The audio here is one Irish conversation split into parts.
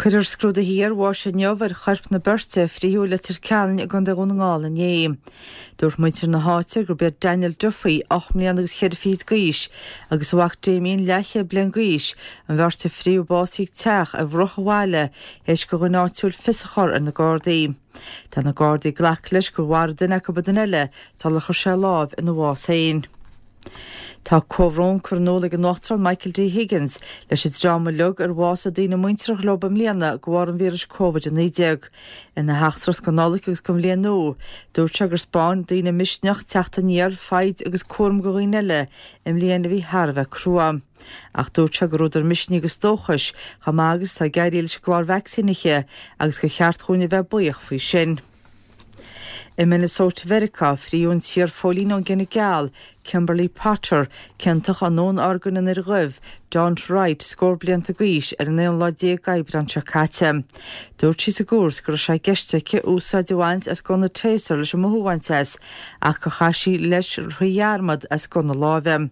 Cuirfear scrúduithe iarbháis inniu ar choirp na beirte a frítheadh i Leitir Ceanainn i gContae Dhún na nGall inné. Dúirt muintir na háite gurb iad Daniel Duffy, 8 mbliana agus cheithre fichid d'aois, agus a mhac Damien, leathchéad bliain d'aois, an bheirt a frítheadh básaithe ag teach ar bhruach an bhaile théis do dhuine áitiúil fios a chur ar na Gardaí. Tá na Gardaí ag glacadh leis gur mharaigh duine acu an duine eile sular chuir sé lámh ina bhás féin. Tá comhbhrón curtha in iúl ag an Uachtarán Michael D. Higgins leis an dream uilig ar bhásaigh daoine muinteartha leo i mbliana de bharr an víris Covid-19. Ina theachtaireacht don Nollaig agus don Bhliain Nua, dúirt sé gur 'spáin daoine misneach, teacht aniar, foighid agus cúram do dhaoine eile i mbliain a bhí thar a bheith crua. Ach dúirt sé gur údar misnigh agus dóchais chomh maith agus atá ag éirí leis an gclár vacsaínithe agus gur cheart dhúinn a bheith buíoch faoi sin. I Minnesota Mheiriceá, frítheadh an t-iar-phóilín ón gcine geal, Kimberly Potter, ciontach i ndúnorgain an fhir dhuibh, Daunte Wright, scór blianta d'aois, ar an aon lá déag d'Aibreán seo caite. Dúirt sí sa gcúirt go raibh sé i gceist aici úsáid a bhaint as gunna Taser leis an mothú a bhaint as, ach gur chaith sí leis faoi dhearmad as gunna láimhe.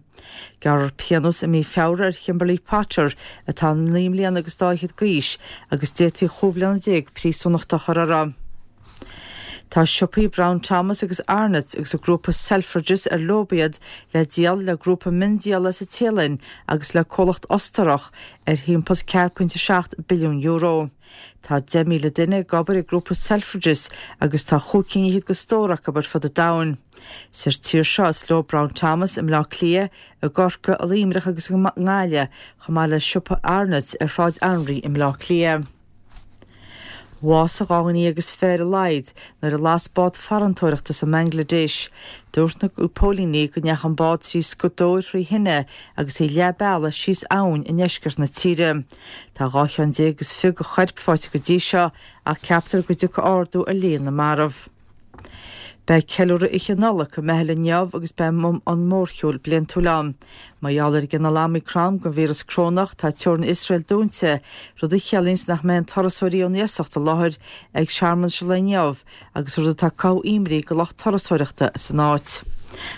Gearrfar pionós i mí Feabhra ar Kimberly Potter, atá 9 mbliana agus dá fhichead d'aois, agus d'fhéadfaí chúig bhliana déag príosúnachta a chur uirthi. Tá siopaí Brown Thomas agus Arnotts agus an grúpa Selfridges ar leo iad le díol le grúpa miondíola sa Téalainn agus le comhlacht Ostarach ar thimpeall €4.7 billiún. Tá 10,000 duine ag obair ag grúpa Selfridges agus tá chúig cinn fhichead de stór acu ar fud an domhain. Sa tír seo is leo Brown Thomas i mBleá Cliath, i gCorcaigh, i Luimneach agus i nGaillimh, chomh maith le siopa Arnotts ar Shráid Anraí i mBleá Cliath. Bhásaigh 12 dhuine ar a laghad nuair a las bád farantóireachta sa mBangladesh. Dúirt na póilíní go ndeachaigh an bád trí scuadóir thrí thine agus í leath bealaigh síos abhainn i ndeisceart na tíre. Tá 12 cheann is fiche de choirp faighte go dtí seo ach ceaptar go dtiocfaidh ardú ar líon na marbh. Beidh ceiliúradh Oíche Nollag i mBeithil inniu agus beidh an mórshiúl bliantúil ann. Mar gheall ar an gcineál Omicron den víreas corónach, tá teorainn Iosrael dúnta, rud a chiallaíonns nach mbeidh aon turasóirí ón iasacht i láthair ag searmanais an lae inniu agus rud atá ag cothú imní go lucht turasóireachta san áit.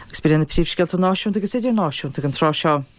Agus b'in iad na príomhscéalta náisiúnta agus idirnáisiúnta ag an tráth seo.